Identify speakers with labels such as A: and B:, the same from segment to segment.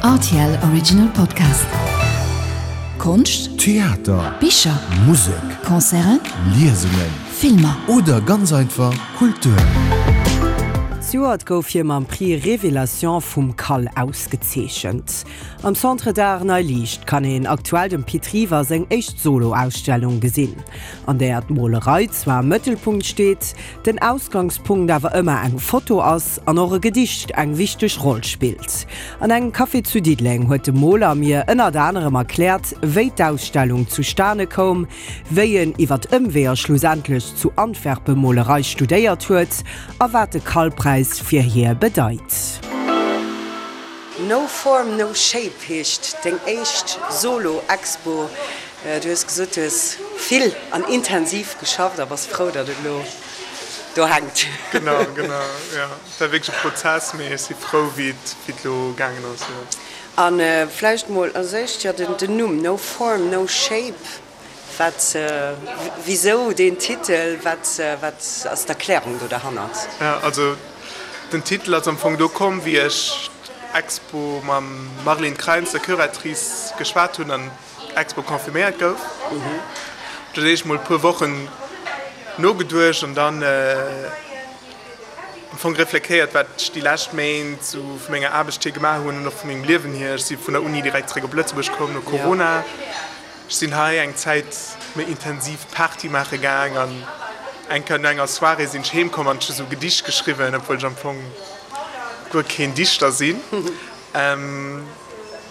A: Rtl Original Podcast. Konscht,
B: Theater,
A: Bicher,
B: Musek,
A: Concerten,
B: Liesungen
A: Filmer.
B: Oder ganz einfach Kultur.
C: Zejoert gouf hie mam Prix Révélation vum CAL ausgezeechent. Am Centre d'Art Nei Liicht kann een aktuell dem Pit River seng éischt Solo-Ausstellung gesinn, an där d'Molerei zwar am Mëttelpunkt steet, den Ausgangspunkt awer ëmmer eng Foto ass an och e Gedicht eng wichteg Roll spillt. An engem Café zu Diddeleng huet de Moler mir ënnert anerem erkläert, wéi d'Ausstellung zustane koum, wéi en iwwert Ëmweeër schlussendlech zu Antwerpe Molerei studéiert huet a wat de Karlpräis fir hie bedeit. No Form No Shape heescht deng éischt Solo-Expo. Du hues gesot, du hues vill an intensiv geschafft a bass frou, datt et elo do hänkt.
D: Genau, genau, jo. Et war wierklech e Prozess, mee ech si frou, wéi et elo gaangen ass, jo.
C: A vläicht mol als éischt, jo, den Numm No Form No Shape, wat, wisou deen Titel, wat, wat ass d'Erklärung do derhannert?
D: Jo, also den Titel ass am Fong do komm, wéi ech d'Expo mam Marlene Kreins, der Curatrice, geschwat hunn an Expo confirméiert gouf. Do hunn ech mol e puer Wochen nogeduecht an dann am Fong reflektéiert, wat ech déi lescht Méint sou vu menger Aarbecht hier gemaach hunn an och vu mengem Liewen hier. Ech si vun der Uni direkt zeréck op Lëtzebuerg komm no Corona. Ech sinn hei eng Zäit méi intensiv Party maache gaang an eng Kéier no enger Soirée sinn ech heem komm an ech hu sou Gedicht geschriwwen, obwuel ech am Fong guer keen Dichter sinn. An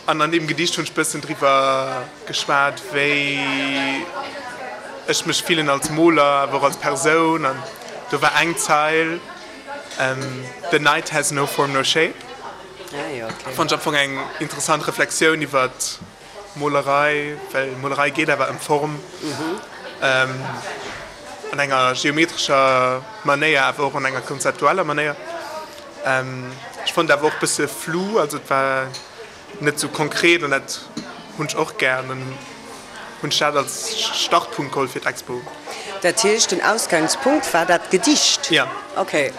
D: an deem Gedicht hunn ech bëssen driwwer geschwat, wéi ech mech fillen als Moler, awer och als Persoun. An do war eng Zeil, The night has no form no shape. Fonnt ech am Fong eng interessant Reflexioun iwwer Molerei, well Molerei geet awer ëm Form an enger geometrescher Manéier, awer och an enger konzeptueller Manéier. Ech fonnt awer och bësse flou, also et war net sou konkret an dat hunn ech och gär an dann hunn ech dat als Startpunkt geholl fir d'Expo.
C: Dat heescht den Ausgangspunkt war dat Gedicht?
D: Ja.
C: Okay.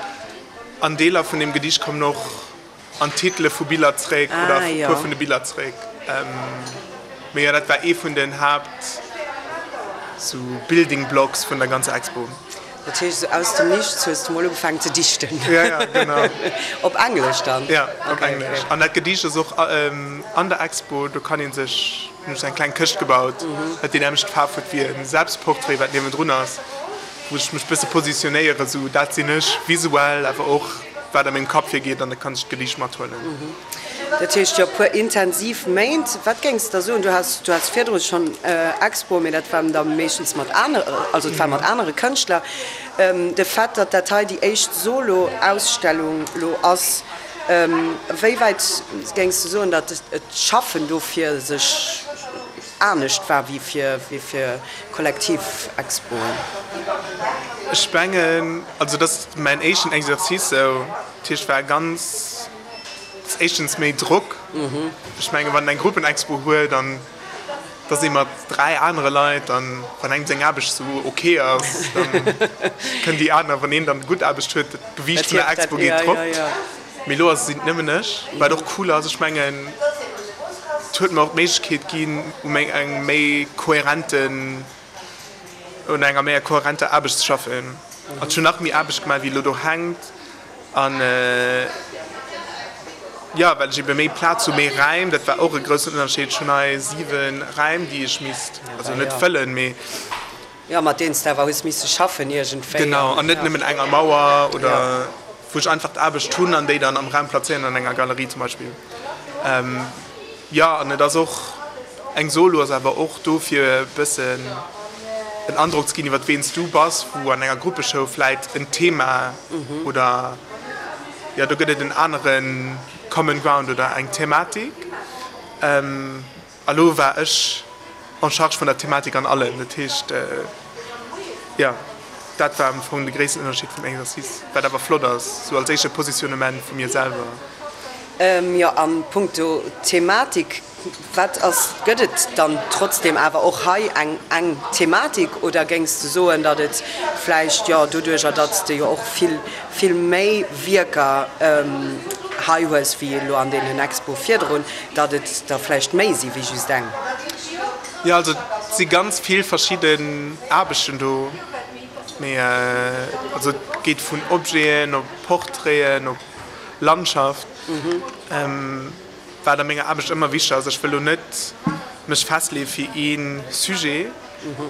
D: An Deeler vun deem Gedicht kommen och an d'Titele vu Biller zréck oder e puer vun de Biller zréck. Mee jo, dat war ee vun den Haapt sou Building Blocks vun der ganzer Expo.
C: Dat heescht, esou aus dem Nichts hues de mol ugefaangen ze dichten.
D: Ja, ja, genau.
C: Op Englesch dann?
D: Ja, op Englesch. An dat Gedicht ass och an der Expo, do kann ee sech, hunn ech eng kleng Këscht gebaut, wat déi nämmlecht Faarf huet wéi e Selbstportrait, wat niewendrun ass, wou ech mech bësse positionéieren, esou dat sinn ech visuell, awer och wat a mengem Kapp virgeet, an da kann ech d'Gedicht mathuelen.
C: Dat heescht jo puer intensiv Méint. Wat géings de da soen? Du has, du has virdru schonn Expoe, mee dat waren da meeschtens mat anere, also et war mat anere Kënschtler. De Fait, datt dat hei déi éischt Solo-Ausstellung lo ass, wéi wäit géings de soen, datt et d'Schaffen dofir sech anescht war wéi fir, wéi fir kollektiv Expoen?
D: Ech mengen, also dat ass mäin éischten Exercice esou, dat heescht war ganz. Ass éischtens méi Drock. Ech menge wann een eng Gruppenexpo huet an et ass ee mat 3 anere Leit an wann engem seng Aarbecht sou ok ass, da kënnen déi aner, wann een dann gutt Aarbecht huet, dat Gewiicht vun der Expo geet drop. Mee elo ass sinn et nëmmen ech, wat och cool ass. Ech mengen et huet mer och d'Méiglechkeet ginn u meng engem méi kohärenten, un enger méi kohärenter Aarbecht ze schaffen. Also ech hunn nach méi Aarbecht gemaach wéi elo do hänkt. An jo, well ech ebe méi Plaz hu, méi Räim, dat war och e groussen Ënnerscheed. Ech hunn hei 7 Räim, déi ech misst, also net fëllen, mee.
C: Jo, mat deenen s de awer hues misse schaffen iergendwéi.
D: Genau, an net nëmmen enger Mauer oder wou ech einfach d'Aarbecht hunn an déi dann am Raum plazéieren, an enger Galerie zum Beispill. Jo, an et ass och, eng Solo ass awer och do fir e bëssen en Androck ze ginn iwwer ween s du bass, wou an enger Gruppeshow vläit en Thema oder jo do gëtt et en anere Common Ground oder eng Thematik. A lo war ech en charge vun der Thematik an allem. Dat heescht, jo, dat war am Fong de gréissten Ënnerscheed vum Exercice, wat awer flott ass, sou als éischte Positionnement vu mir selwer.
C: Jo, a punkto Thematik, wat ass, gëtt et dann trotzdem awer och hei eng eng Thematik oder géings de soen, datt et vläicht, jo, doduerjer datt s de jo och vill, vill méi Wierker. hei hues wéi elo an deenen Expoe virdrun, datt et der vläicht méi si wéi just eng?
D: Jo, also et si ganz vill verschidden Aarbechten do, mee also et geet vun Objeten op Portraiten op Landschaft. Wat a menger Aarbecht ëmmer wichteg ass, ech wëll lo net mech festleeë fir ee Sujet,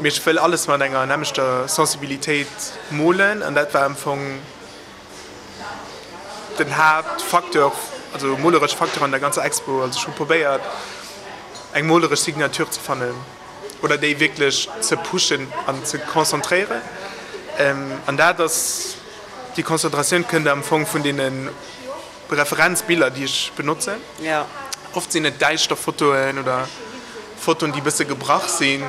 D: mee ech wëll alles mat enger nämmlechter Sensibilitéit molen an dat war am Fong den Haaptfacteur, also moleresch Facteur an der ganzer Expo. Also ech hu probéiert eng moleresch Signature ze fannen oder déi wierklech ze pushen an ze konzentréieren an dat ass, déi Konzentratioun kënnt am Fong vun deene Referenzbiller, déi ech benotzen. Oft sinn et däischter Fotoen oder Fotoen, déi e bësse gebrach sinn.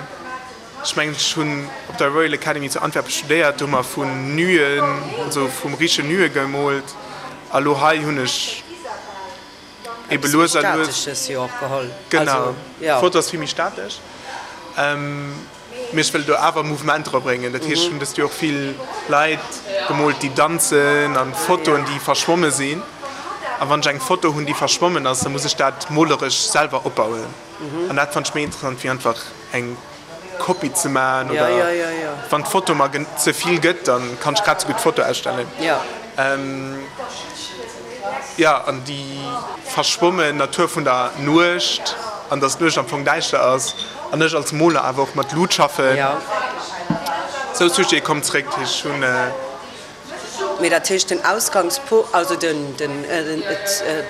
D: Ech mengen, ech hunn op der Royal Academy zu Antwerpen studéiert, do hu mer vun Nuen, also vum riche Nue gemoolt. A lo hei hunn ech ebe lues a lues. Genau, d'Foto ass vill méi statesch. Mee ech wëll do awer Mouvement dra bréngen. Dat heescht, ech hunn dëst Joer och vill Leit gemoolt, déi danzen an Fotoen, déi verschwomme sinn. A wann ech eng Foto hunn, déi verschwommen ass, da muss ech dat moleresch selwer opbauen. An dat fannt ech méi interessant, wéi einfach eng Kopie ze maachen. Oder wann d'Foto mer ze vill gëtt, da kann ech grad esou gutt d'Foto ausstellen. Jo, an déi verschwommen Natur vun der Nuecht, an dass d'Nuecht am Fong däischter ass, an ech als Moler awer och mat Lut schaffen. Sou Sujete kommen zréck. Ech hunn.
C: Mee dat heescht, den Ausgangspo-, also den, den,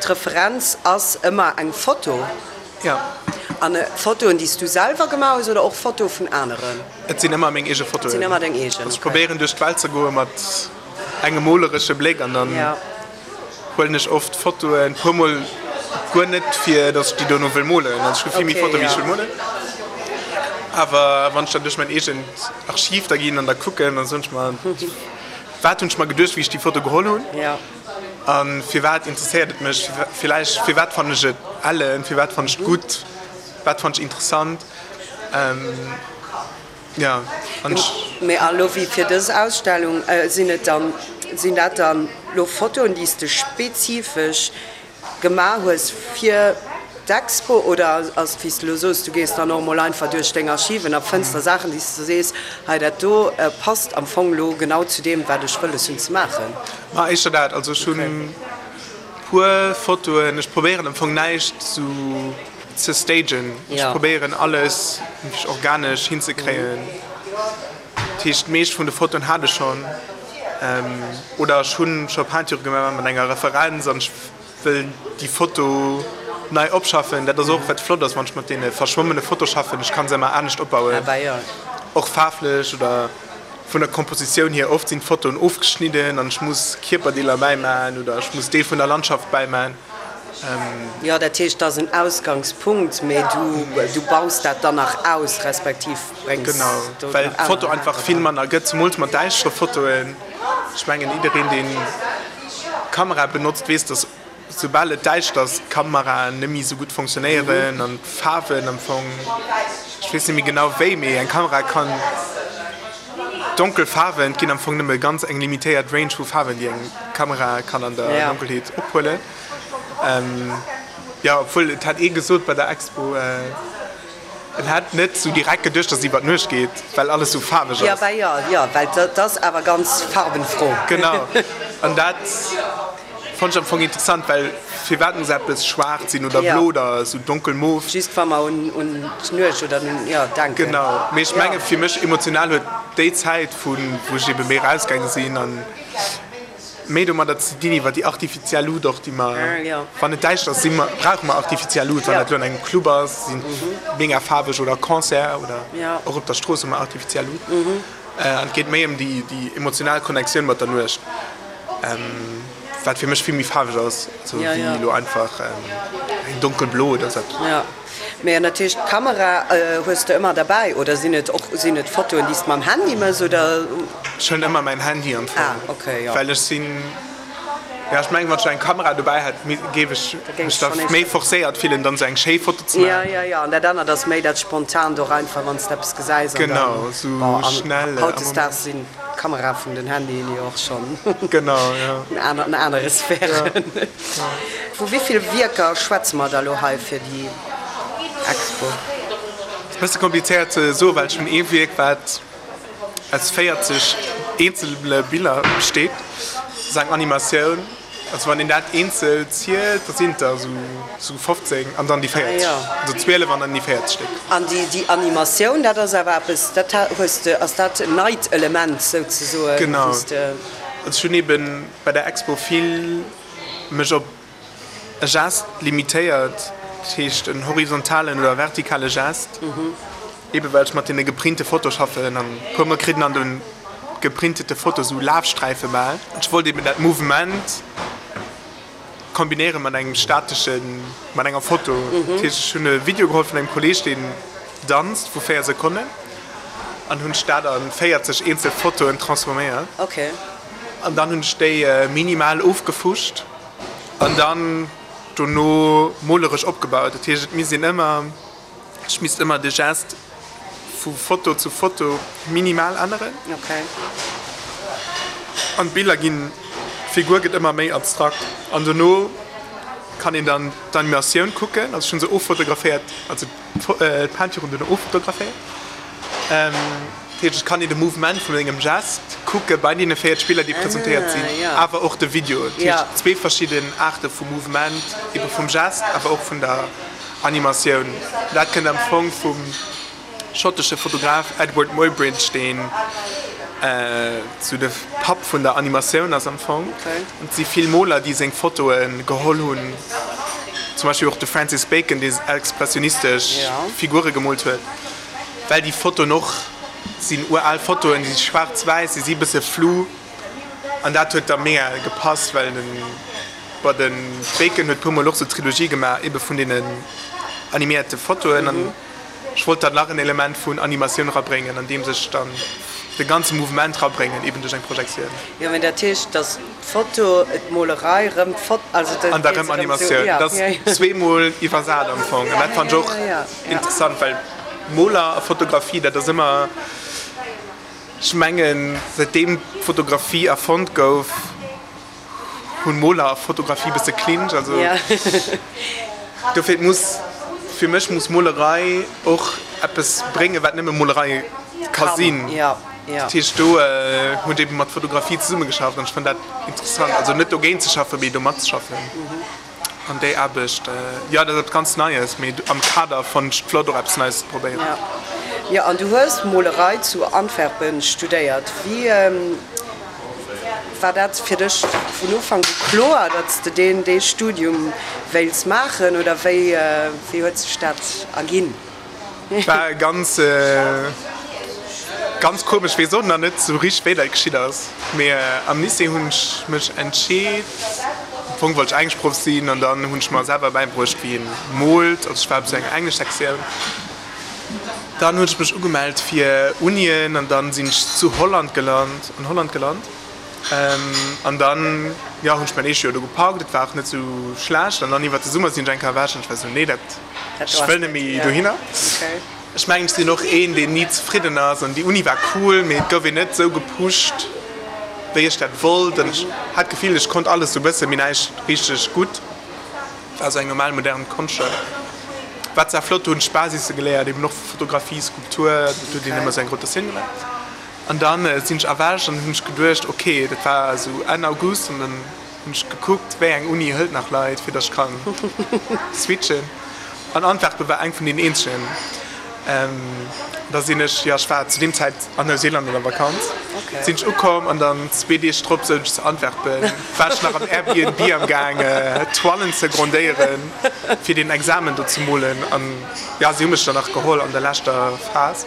C: d'Referenz ass ëmmer eng Foto?
D: Jo.
C: An Fotoen, déi s du selwer gemaach hues oder och Fotoe vun aneren?
D: Et sinn ëmmer meng eege Fotoen.
C: Et sinn ëmmer deng eegen,
D: okay. Ech probéieren duerch d'Welt ze goe mat engem moleresche Bléck an dann huelen ech oft Fotoen, puer mol guer net fir datt ech déi dono wëll molen, also ech hu vill méi Fotoen wéi ech wëll molen, awer wann ech dann duerch mäin eegent Archiv da ginn an da kucken, da soen ech mer, wat hunn ech mer geduecht wéi ech déi Foto geholl hunn a firwat interesséiert et mech villäicht, firwat fannen ech et ellen, firwat fannen ech et gutt, wat fannen ech interessant. Ja,
C: an ech. Mee a lo wéi fir dës Ausstellung, sinn et dann, sinn dat dann lo Fotoen, déi s de spezifesch gemaach hues fir d'Expo oder ass et wéi s de lo soos, du gees dann och mol einfach duerch deng Archiven a fënns da Saachen, déi s de sees, hei dat do passt am Fong lo genau zu deem, wat ech wëlles hunn ze maachen?
D: Ma éischter dat. Also ech hunn puer Fotoen, ech probéieren am Fong näischt sou ze stagen. Ech probéieren alles wierklech organesch hinzekréien. Dat heescht d'meescht vun de Fotoen hat ech schonn oder ech hunn scho Peinture gemaach mat enger Referenz an ech wëll déi Foto nei opschaffen. Dat ass och wat flott ass wann ech mat deene verschwommene Foto schaffen, ech kann se ëmmer anescht opbauen, och faarflech oder vun der Kompositioun hier. Oft sinn d'Fotoen ofgeschnidden an ech muss Kierperdeeler bäimaen oder ech muss Deel vun der Landschaft bäimaen.
C: Jo, dat heescht, et ass en Ausgangspunkt, mee du baus dat dann nach aus, respektiv bréngs
D: do nach aner. Genau, well d'Foto einfach vill manner gëtt, zemools mat däischtere Fotoen. Ech mengen, jiddereen, deen Kamera benotzt, weess, dass soubal et däischter ass, d'Kameraen net méi esou gutt fonctionnéieren an d'Faarwen am Fong, ech weess net méi genau wéi, mee eng Kamera kann donkel Faarwen, et ginn am Fong nëmme ganz eng limitéiert Range vu Faarwen, déi eng Kamera kann an der Donkelheet ophuelen. Jo, obwuel et hat ee gesot bei der Expo, en hätt net sou direkt geduecht, dass et iwwer d'Nuecht geet, well alles sou faarweg
C: ass. Jo, jo, well dat ass awer ganz farbenfroh.
D: Genau, an dat fonnt ech am Fong interessant, well firwat muss eppes schwaarz sinn oder blo oder sou donkel mof?
C: Just wa mer un d'Nuecht oder un, jo, denken.
D: Genau, mee ech menge fir mech emotional huet déi Zäit, vu wou ech ebe méi erausgaange sinn an méi domadder ze dinn, iwwer déi artifiziell Lut och, déi mer, wann et däischter ass, si mer, brauche mer artifiziell Lut, wann dat elo an engem Club ass, si mega faarweg oder Concert oder och op der Strooss hu mer artifiziell Lut. An et geet méi ëm déi, déi emotional Connectioun mat der Nuecht, wat fir mech vill méi faarweg ass, esou wéi elo einfach eng donkelblo oder esou eppes.
C: Mee an dat heescht d'Kamera hues de ëmmer derbäi oder sinn et och sinn et Fotoen déi s de mam Handy mëss oder?
D: Ech hunn ëmmer mäin Handy am Fong,
C: ah okay, jo.
D: Well ech sinn, jo ech mengen wann ech eng Kamera dobäi hätt géif ech mech da méi forcéiert fillen dann esou eng schéi Foto ze
C: maachen. Jo jo jo an dat anert ass méi dat Spontant och einfach wann s de eppes gesäis an dann,
D: genau esou
C: bon an
D: schnell am
C: hautdesdaags
D: Moment.
C: sinn. d'Kamera vun den Handyen jo och schonn
D: Genau, jo.
C: an anere Sphären. Vu wéi vill Wierker schwätze mer da lo hei fir déi Expo?
D: Ass e bësse komplizéiert ze soen, well ech hunn ee Wierk, wat aus 40 eenzele Biller besteet. Dat ass eng Animatioun. Also wann een dat eenzel zielt, da sinn et der esou 15 an dann déi 40, also 12 an dann déi 40 Stéck.
C: An déi Animatioun, dat ass awer eppes, dat hues de, ass dat en neit Element souzesoen?
D: Genau. Also ech hunn eben bei der Expo vill mech op e Gest limitéiert, dat heescht en horizontalen oder vertikale Gest, ebe well ech mat deene geprinte Foto schaffen an e puer mol kritt een an de geprintete Foto sou Lafsträife bal. Ech wollt eben dat Mouvement kombinéiere mat engem stateschen, mat enger Foto. Dat heescht ech hunn e Video geholl vun engem Kolleeg deen danzt vu 4 Sekonnen an hunn ech dat a 40 eenzel Fotoen transforméiert an dann hunn ech déi minimal ofgefuscht. An dann dono moleresch opgebaut. Dat heescht, et misst een ëmmer, ech misst ëmmer de Gest vu Foto zu Foto minimal änneren. An d'Biller ginn, d'Figur gëtt ëmmer méi abstrakt. An dono kann een dann d'Animatioun kucken. Also ech hunn se offotograféiert, also d'Peinture hunn dono offotograféiert. Dat heescht, et kann een de Mouvement vun sengem Gest kucke bei deene 4 Spiller, déi presentéiert sinn, awer och de Video. Dat heescht, zwee verschidden Aarte vu Mouvement, ebe vum Gest, awer och vun der Animatioun. Dat kënnt am Fong vum schottesche Fotograf Edward Muybridge, deen sou de Papp vun der Animatioun ass am Fong. Et si vill Moler, déi seng Fotoe geholl hunn, zum Beispill och de Francis Bacon, dee expressionistesch Figure gemoolt huet. Well déi Fotoen och sinn ural Fotoen, déi si schwaarz-wäiss, déi si bësse flou an dat huet da mega gepasst, well den, bon de Bacon huet puermol och sou Trilogie gemaach ebe vun deenen animéierte Fotoen an ech wollt dann nach en Element vun Animatioun rabréngen, andeems ech dann de ganze Mouvement rabréngen, eben duerch eng Projektioun.
C: Jo, mä dat heescht, dass D'Foto, d'Molerei, rëm d'Foto, also dat
D: An da rëm Animatioun. Dat ass zweemol iwwersat am Fong. An dat fannt ech och interessant, well Moler a Fotografie, dat ass ëmmer, ech mengen, säitdeem d'Fotografie erfonnt gouf, hunn Moler a Fotografie e bësse Clinch. Also dofir muss, fir mech muss Molerei och eppes bréngen, wat nëmme Molerei ka sinn. Dat heescht, do hunn ech ebe mat Fotografie zesummegeschafft an ech fannen dat interessant. Also net dogéint ze schaffen, mee do matzeschaffen. An déi Aarbecht, jo, dat ass eppes ganz Neies, mee am Kader fannen ech et flott, och eppes Neies ze probéieren.
C: Jo, an du hues Molerei zu Antwerpen studéiert. Wéi war dat fir dech vun Ufank u kloer, datt s de deen dee Studium wéilts maachen oder wéi huet sech dat erginn?
D: War ganz ganz komesch, wees och nach net sou richteg wéi dat geschitt ass, mee am Lycée hunn ech mech entscheet, am Fong wollt ech Engleschproff sinn an dann hunn ech mer selwer bäibruecht wéi een moolt, also ech war op sou enger Engleschsektioun, dann hunn ech mech ugemellt fir Unien an dann sinn ech zu Holland gelant, an Holland gelant. An dann, jo, hunn ech mäin éischt Joer do gepackt. Et war och net sou schlecht. An dann iwwert de Summer sinn ech eng Kéier ewech an ech war sou, nee, dat, ech wëll net méi dohinner. Ech mengen, ech sinn och een, deen ni zefridden ass. An déi Uni war cool, mee et gouf een net sou gepusht, wéi ech dat wollt. An ech hat d'Gefill, ech konnt alles sou bëssen, mee näischt richteg gutt. War sou eng normal modern Konschtschoull. War zwar flott, do hunn ech d'Basisse geléiert, eben och vu Fotografie, Skulptur, do huet een ëmmer sou eng Rotatioun gemaach. An dann sinn ech erwächt an hunn ech geduecht, ok, dat war esou Enn August, an dann hunn ech gekuckt, wéi eng Uni hëlt nach Leit, fir datt ech kann switchen. An Antwerpen war eng vun deenen eenzegen. Da sinn ech, jo, ech war zu deem Zäit an Neuseeland an der Vakanz, sinn ech ukomm an dann zwee Deeg drop souz ech zu Antwerpen, war ech nach am Airbnb am gaang Toilen ze grondéieren, fir deen Examen do ze molen. An jo, si hu mech dann nach geholl an der leschter Phas.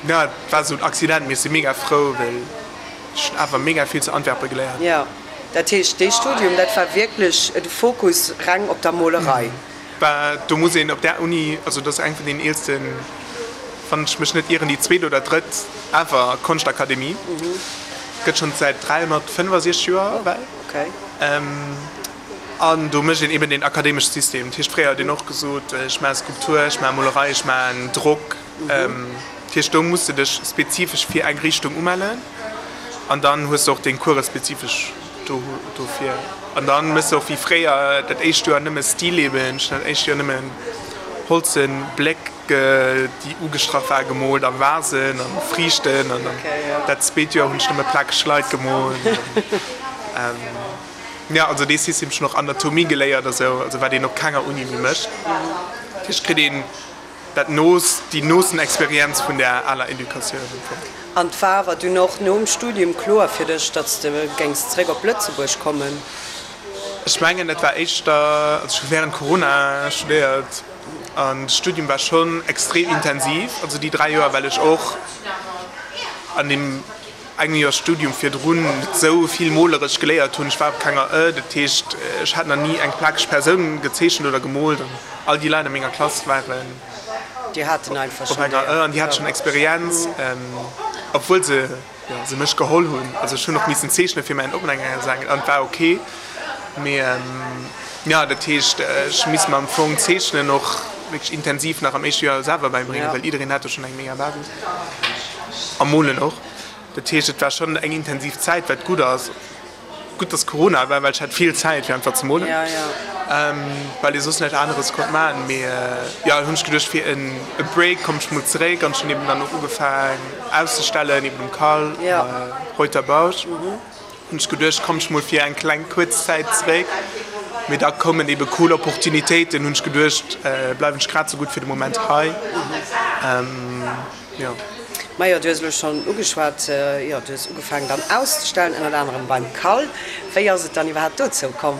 D: Jo, et war esou en Accident, mee ech si mega frou, well ech hunn awer mega vill zu Antwerpen geléiert.
C: Jo, dat heescht, dee Studium, dat war wierklech de Fokus reng op der Molerei?
D: Bah, do muss een op där Uni, also dat ass eng vun den eelsten, wann ech mech net ieren, déi zweet oder drëtt ever Konschtakademie, gëtt schonn säit 365 Joer ewell. An do mécht een eben deen akademesche System. Dat heescht, fréier huet een och gesot, ech maache Skulptur, ech maache Molerei, ech maachen Drock. Dat heescht, do muss de dech spezifesch fir eng Richtung umellen an dann hues de och deng Coure spezifesch dofir. An dann méchs de och wéi fréier dat éischt Joer nëmme Stilleben, ech hunn dat éischt Joer nëmmen holzen Bléck, déi ugestrach war, gemoolt a Vasen an Friichten an dann dat zweet Joer hunn ech nëmme plakeg Leit gemoolt. Jo, also dee System ech hunn och Anatomie geléiert a sou, also wat een op kenger Uni méi mécht. Dat heescht, kritt een dat noost, déi noosten Experienz vun där aler Educatioun am Fong.
C: An et war awer dunn och nom Studium kloer fir dech, datt s de géings zeréck op Lëtzebuerg kommen?
D: Ech mengen, dat war éischter, also ech hu wärend Corona studéiert an de Studium war schonn extrem intensiv, also déi 3 Joer, well ech och an deem engem Joer Studium virdrun net esou vill moleresch geléiert hunn. Ech war op kenger Ë, dat heescht, ech hat nach ni eng plakeg Persoun gezeechent oder gemoolt an all déi Leit a menger Klass waren
C: Déi haten einfach
D: op
C: schonn
D: enger Ë an déi hate schonn Experienz, obwuel se, jo, se mech geholl hunn. Also ech hunn och missen zeechne fir mäin Open-Air-Examen an et war ok. Mee jo, dat heescht, ech misst mer am Fong d'Zeechnen och wierklech intensiv nach am éischte Joer selwer bäibréngen, well jiddereen hat do schonn eng mega Basis a molen och. Dat heescht, et war schonn eng intensiv Zäit, wat gutt ass. Gutt, dass Corona war, well ech hat vill Zäit fir einfach ze molen, well ee soss näischt aneres konnt maachen. Mee jo, hunn ech geduecht, fir en Break komm ech mol zeréck an ech hunn eben dann och ugefaang auszestellen, eben um Cal, Reuter Bausch. Hunn ech geduecht, komm ech mol fir eng kleng kuerz Zäit zeréck. Mee da koumen ebe cool Opportunitéiten, hunn ech geduecht, bleiwen ech grad sou gutt fir de Moment hei. Jo.
C: Majo, du hues elo schonn ugeschwat, jo, du hues ugefaangen dann auszestellen, ënnert anerem beim Cal. Wéi ass et dann iwwerhaapt dozou komm?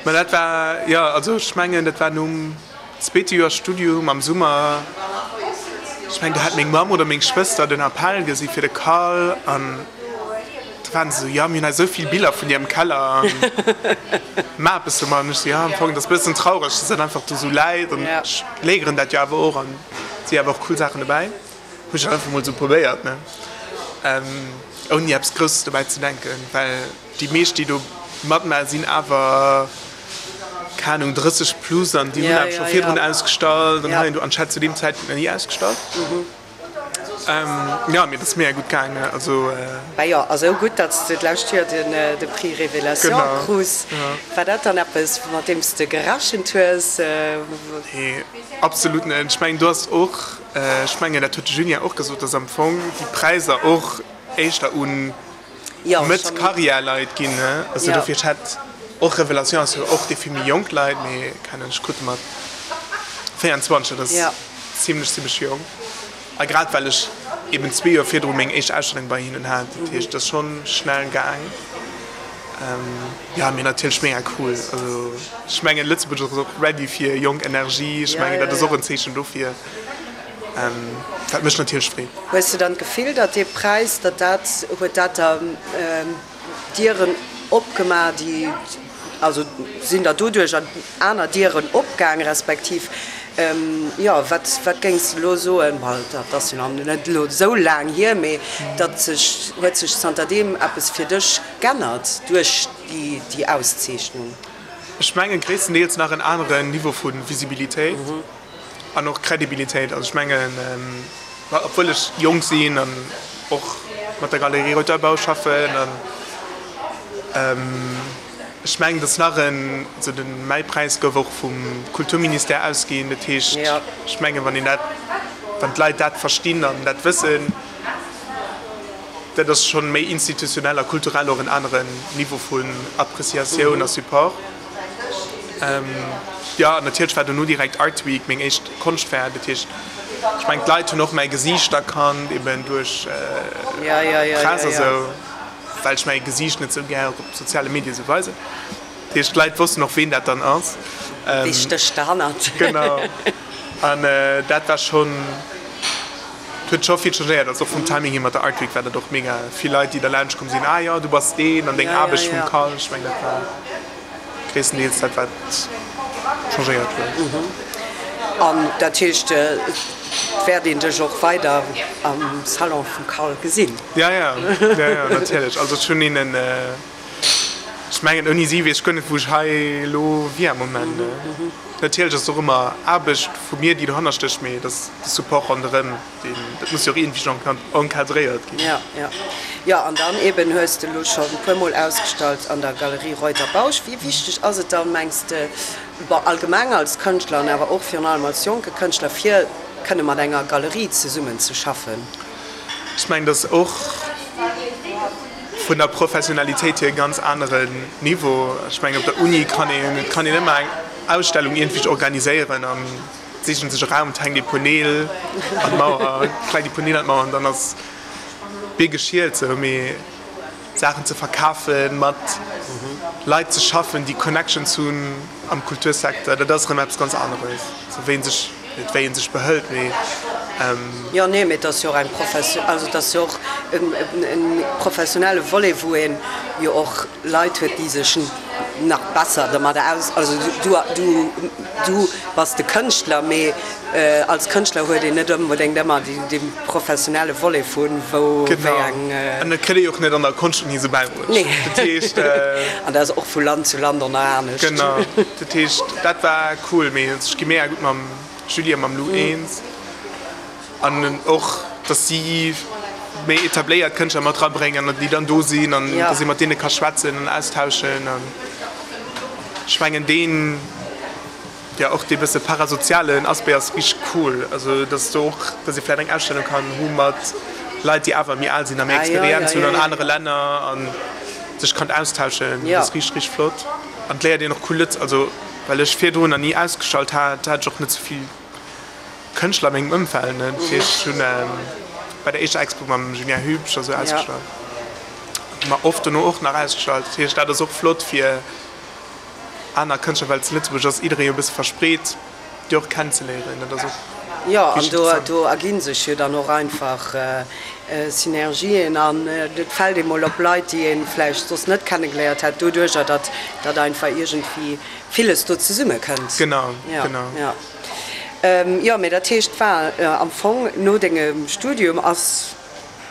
D: Ma dat war, jo, also ech mengen, dat war nom zweete Joer Studium am Summer. Ech mengen, do hat meng Mamm oder meng Schwëster den Appell gesi fir de Cal an da waren se esou, jo, mir hunn hei esou vill Biller vun dir am Keller an maach eppes domat. An ech esou, jo, am Fong, dat ass e bëssen traureg, dass dat einfach do esou läit an ech léigeren dat jo awer och an Si awer och cool Saachen dobäi. Hu ech einfach mol sou probéiert ne, ouni eppes Grousses dobäi ze denken, well déi meescht déi do matmaachen sinn awer, keng Ahnung, 30 plus an déi hunn awer scho virdrun ausgestallt an hei an do an ech hat zu deem Zäitpunkt nach ni ausgestallt. Jo, mee et ass mega gutt gaangen, also.
C: Bah jo, a sou gutt, datt s de d'lescht Joer de Prix Révélation krus. War dat dann eppes, mat deem s de gerechent hues?
D: Nee, absolut net. Ech mengen, do ass och, ech mengen, dat huet de Julien och gesot, datt am Fong déi Präisser och éischter u Mëtt-Karriär-Leit ginn. Also dofir, ech hätt och, Révélation ass jo och dee fir méi jonk Leit, mee keng Ahnung, ech krut e mat 24, dat ass zimlech, zimlech jonk. A grad well ech eben zwee Joer virdru meng éischt Ausstellung bei hinnen hat, dat heescht, et ass schonn schnell gaang. Jo, mee natierlech mega cool. Also ech mengen, Lëtzebuerg ass och ready fir jonk Energie. Ech mengen, dat ass och en Zeechen dofir, wat mech natierlech freet.
C: Hues de dann d'Gefill, datt dee Präis, datt dat, huet dat der Dieren opgemaach, déi, also sinn der doduerch aner Dieren opgaang, respektiv, jo, wat, wat géings de elo soen, well dat ass jo nach net elo esou laang hier, mee datt sech, huet sech zanterdeem eppes fir dech g'ännert duerch déi, déi Auszeechnung?
D: Ech mengen gréisstendeels nach en aneren Niveau vu Visibilitéit. An och Credibilitéit. Also ech mengen, obwuel ech jonk sinn an och mat der Galerie Reuter-Bau schaffen an ech mengen, datt nach en, also de mäi Präis gouf och vum Kulturministère ausginn. Dat heescht, ech mengen, wann een dat, wann d'Leit dat verstinn an dat wëssen, dat ass schonn méi institutionell a kulturell och en aneren Niveau vun Appreciatioun a Support. Jo, an natierlech war dono direkt Art Week, meng éischt Konschtfaire. Dat heescht, ech mengen, d'Leit hunn och mäi Gesiicht erkannt, eben duerch d'Press a sou, well ech mäi Gesiicht net sou gär op soziale Medie sou weisen. Dat heescht, d'Leit wossten och, ween dat dann ass.
C: Wee stécht derhannert?
D: Genau. An dat war schonn. Et huet scho vill changéiert, also och vum Timing hier mat der Art Week war dat och mega vill Leit déi derlaanscht komm sinn, ah jo du bass deen an deng Aarbecht vum Cal, ech mengen dat war gréisstendeels dat wat changéiert huet.
C: An dat heescht et wäert een dech och weider am Salon vum Cal gesinn?
D: Ja ja, ja ja natierlech, also ech hunn hinnen. Ech mengen, ouni si weess ech guer net, wou ech hei elo wier am Moment. Natierlech ass et och ëmmer Aarbecht vu mir, déi dohanner stécht, mee et ass de Support ronderëm, deen, dat muss jo och iergendwéi encadréiert ginn.
C: Jo, jo. Jo, an dann eeben hues de elo scho e puermol ausgestallt an der Galerie Reuter-Bausch. Wéi wichteg ass et dann, mengs de, bon, allgemeng als Kënschtler an awer och virun allem als jonke Kënschtler, fir kënne mat enger Galerie zesummenzeschaffen?
D: Ech mengen, dat ass och vun der Professionalitéit hier e ganz aneren Niveau. Ech mengen, op der Uni kann een, et kann een ëmmer eng Ausstellung iergendwéi organiséieren an sichen sech e Raum, et hänkt ee puer Neel an d'Mauer, kleit ee puer Neel an d'Mauer an dann ass d'Bier geschielt sou. Mee Saachen ze verkafen, mat Leit ze schaffen, déi Connections hunn am Kultursecteur, dat ass erëm eppes ganz aneres, sou wéi ee sech, net wéi ee sech behëlt, mee.
C: Jo, nee, mee et ass jo och eng Profession, also et ass jo och e professionelle Volet, wou ee jo och Leit huet, déi sech nach besser dermadder aus, also du, du, du bass de Kënschtler, mee als Kënschtler huet een net onbedéngt ëmmer dee professionelle Volet vu wou wéi eng.
D: Genau, an dat kritt ee jo och net an der Konschtuni esou bäibruecht.
C: Nee,
D: dat heescht.
C: An dat ass och vu Land zu Land och nach anescht.
D: Genau, dat heescht, dat war cool, mee ech gi mega gutt mam Julie a mam Lou eens. An och, dass si méi etabléiert Kënschtler mat erabréngen an déi dann do sinn an dass ee mat deene ka schwätzen an austauschen. An ech mengen deen, jo och dee bësse parasozialen Aspect ass richteg cool. Also dass do och, dass ee vläicht eng Ausstellung kann hu mat Leit, déi awer méi al sinn a méi Experienz hunn an anere Länner a sech kann austauschen. Dat ass richteg, richteg flott. An et léiert een och cool Lëtz, also well ech virdrun nach ni ausgestallt hat, hat ech och net sou vill Kënschtler a mengem Ëmfeld, ne? Dat heescht, ech hunn bei der éischter Expo mam Julien Hübsch a sou ausgestallt, ma oft dono och nach ausgestallt. Dat heescht, dat ass och flott fir aner Kënschtler, well zu Lëtzebuerg ass jidderee jo e bësse verspreet, déi och kennenzeléieren. Dat ass och
C: Jo, an
D: richteg
C: do,
D: interessant.
C: do erginn sech jo dann och einfach Synergien an et fält ee mol op Leit, déi ee vläicht soss net kennegeléiert hätt, doduercher, datt, datt einfach iergendwéi villes do zesummekënnt.
D: Genau, genau.
C: Jo. Jo, mee dat heescht, war am Fong no dengem Studium ass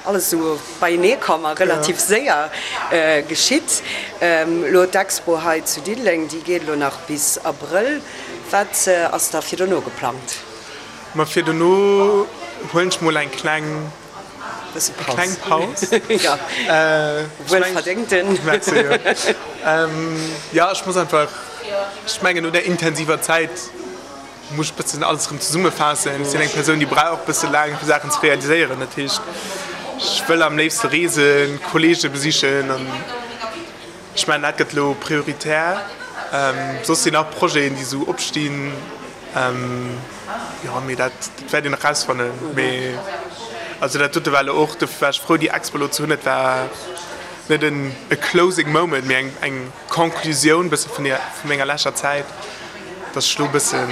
C: alles esou beienee komm a relativ séier geschitt. Elo d'Expo hei zu Diddeleng, déi geet elo nach bis Abrëll. Wat ass da fir dono geplangt?
D: Ma fir dono huelen ech mol eng kleng kleng Paus.
C: Wuelverdéngten.
D: Merci, jo. Jo, ech muss einfach, ech mengen no där intensiver Zäit muss ech bëssen alles erëm zesummefaassen. Ech sinn eng Persoun, déi brauch bësse laang fir Saachen ze realiséieren. Dat heescht, ech wëll am léifste reesen, Kollege besichen an ech mengen dat gëtt elo prioritär. Soss sinn nach Projeten, déi esou opstinn. Jo, mee dat wäert een nach rausfannen. Mee also dat dote war elo och, dofir war ech frou déi Expo elo ze hunn. Et war net en e closing moment, mee eng eng Conclusioun bësse vun der vu menger leschter Zäit, datt ech elo bësse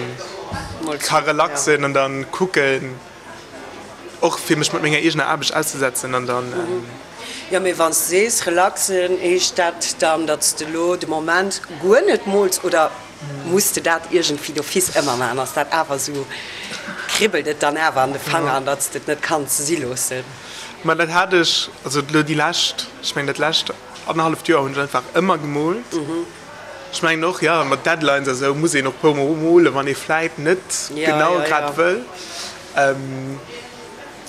D: ka relaxen an dann kucken och fir mech mat menger eegener Aarbecht auszesetzen an dann.
C: Jo, mee wann s de sees relaxen, heescht dat dann, datt s de elo de Moment guer net mools oder? Muss de dat iergendwéi d'office ëmmer maachen? Ass dat awer esou, kribbelt et dann awer an de Fanger, an datt s de et net kanns si loossen?
D: Ma dat hat ech, also elo déi lescht, ech mengen dat lescht annerhalleft Joer hunn ech einfach ëmmer gemoolt. Ech mengen och, jo, mat Deadlines a sou muss een och puer mol molen, wann ee vläit net genau grad wëll.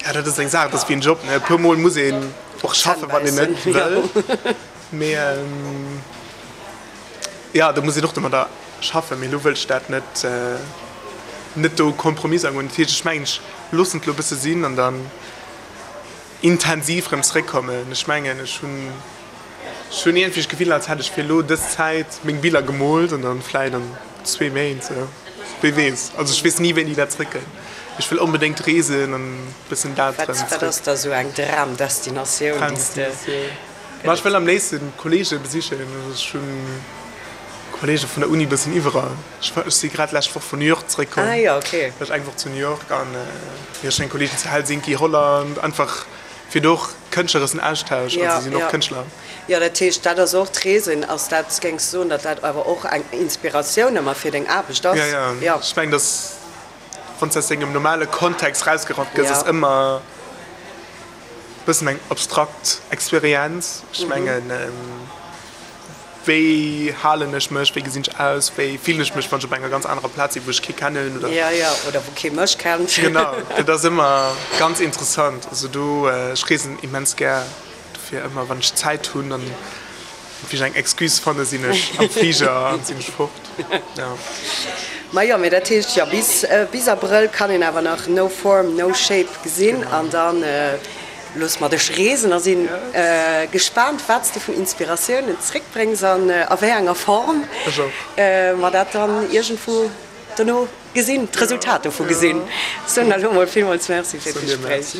D: Jo, dat ass eng Saach, dat ass wéi en Job, ne, e puer mol muss een och schaffen, wann een net wëll. Mee. Jo, do muss een och domadder schaffen, mee elo wëll ech dat net, net do Kompromiss agoen. Dat heescht, ech mengen, ech loossen et elo e bësse sinn an dann intensiv erëm zeréckkommen. Ech mengen, ech hunn, ech hunn iergendwéi d'Gefill, als hätt ech fir elo dës Zäit meng Biller gemoolt an dann vläit an zwee Méint, sou, wee weess. Also ech weess ni, wéini dat zeréckkënnt. Ech wëll onbedéngt reesen an e bëssen dat erëm
C: zeréck. Wat ass da sou eng Dramdestinatioun, déi s de.
D: Ma ech wëll am léifsten Kollege besichen. Ech hunn Kollege vun der Uni bëssen iwwerall. Ech si grad lescht Woch vun New York zeréckkomm.
C: Ah jo, okay.
D: War ech eng Woch zu New York an jo, ech hunn eng Kolleegin zu Helsinki, Holland, einfach fir do och kënschtleressen Austausch. Also si sinn och Kënschtler.
C: Jo, dat heescht, dat ass och d'Reesen. Ass dat, géings du soen, datt dat awer och eng Inspiratioun ëmmer fir deng Aarbecht ass?
D: Jo, jo. Ech mengen, datt wann s de aus dengem normale Kontext rausgerappt gëss, ass ëmmer. Bëssen eng abstrakt Experienz. Ech mengen. Wéi halen ech mech, wéi gesinn ech aus, wéi fillen ech mech, wann ech op enger ganz anerer Plaz sinn, wou ech kee kennen
C: oder. Jo, jo, oder wou kee mech kennt.
D: Genau, dat ass ëmmer ganz interessant. Also do, ech reesen immens gär, dofir ëmmer wann ech Zäit hunn an wéi ech eng Excuse fanne sinn ech am Fliger an sinn ech fort, jo.
C: Majo, mee dat heescht jo, bis, bis Abrëll kann een awer nach No Form, No Shape gesinn an dann. Looss mer dech reesen a sinn gespaant wat s de vun Inspiratiounen zréckbréngs an a wéi enger Form mer dat dann iergendwou dono gesinn, d'Resultat dovu gesinn. Soen der elo mol villmools Merci fir d'Gespréich.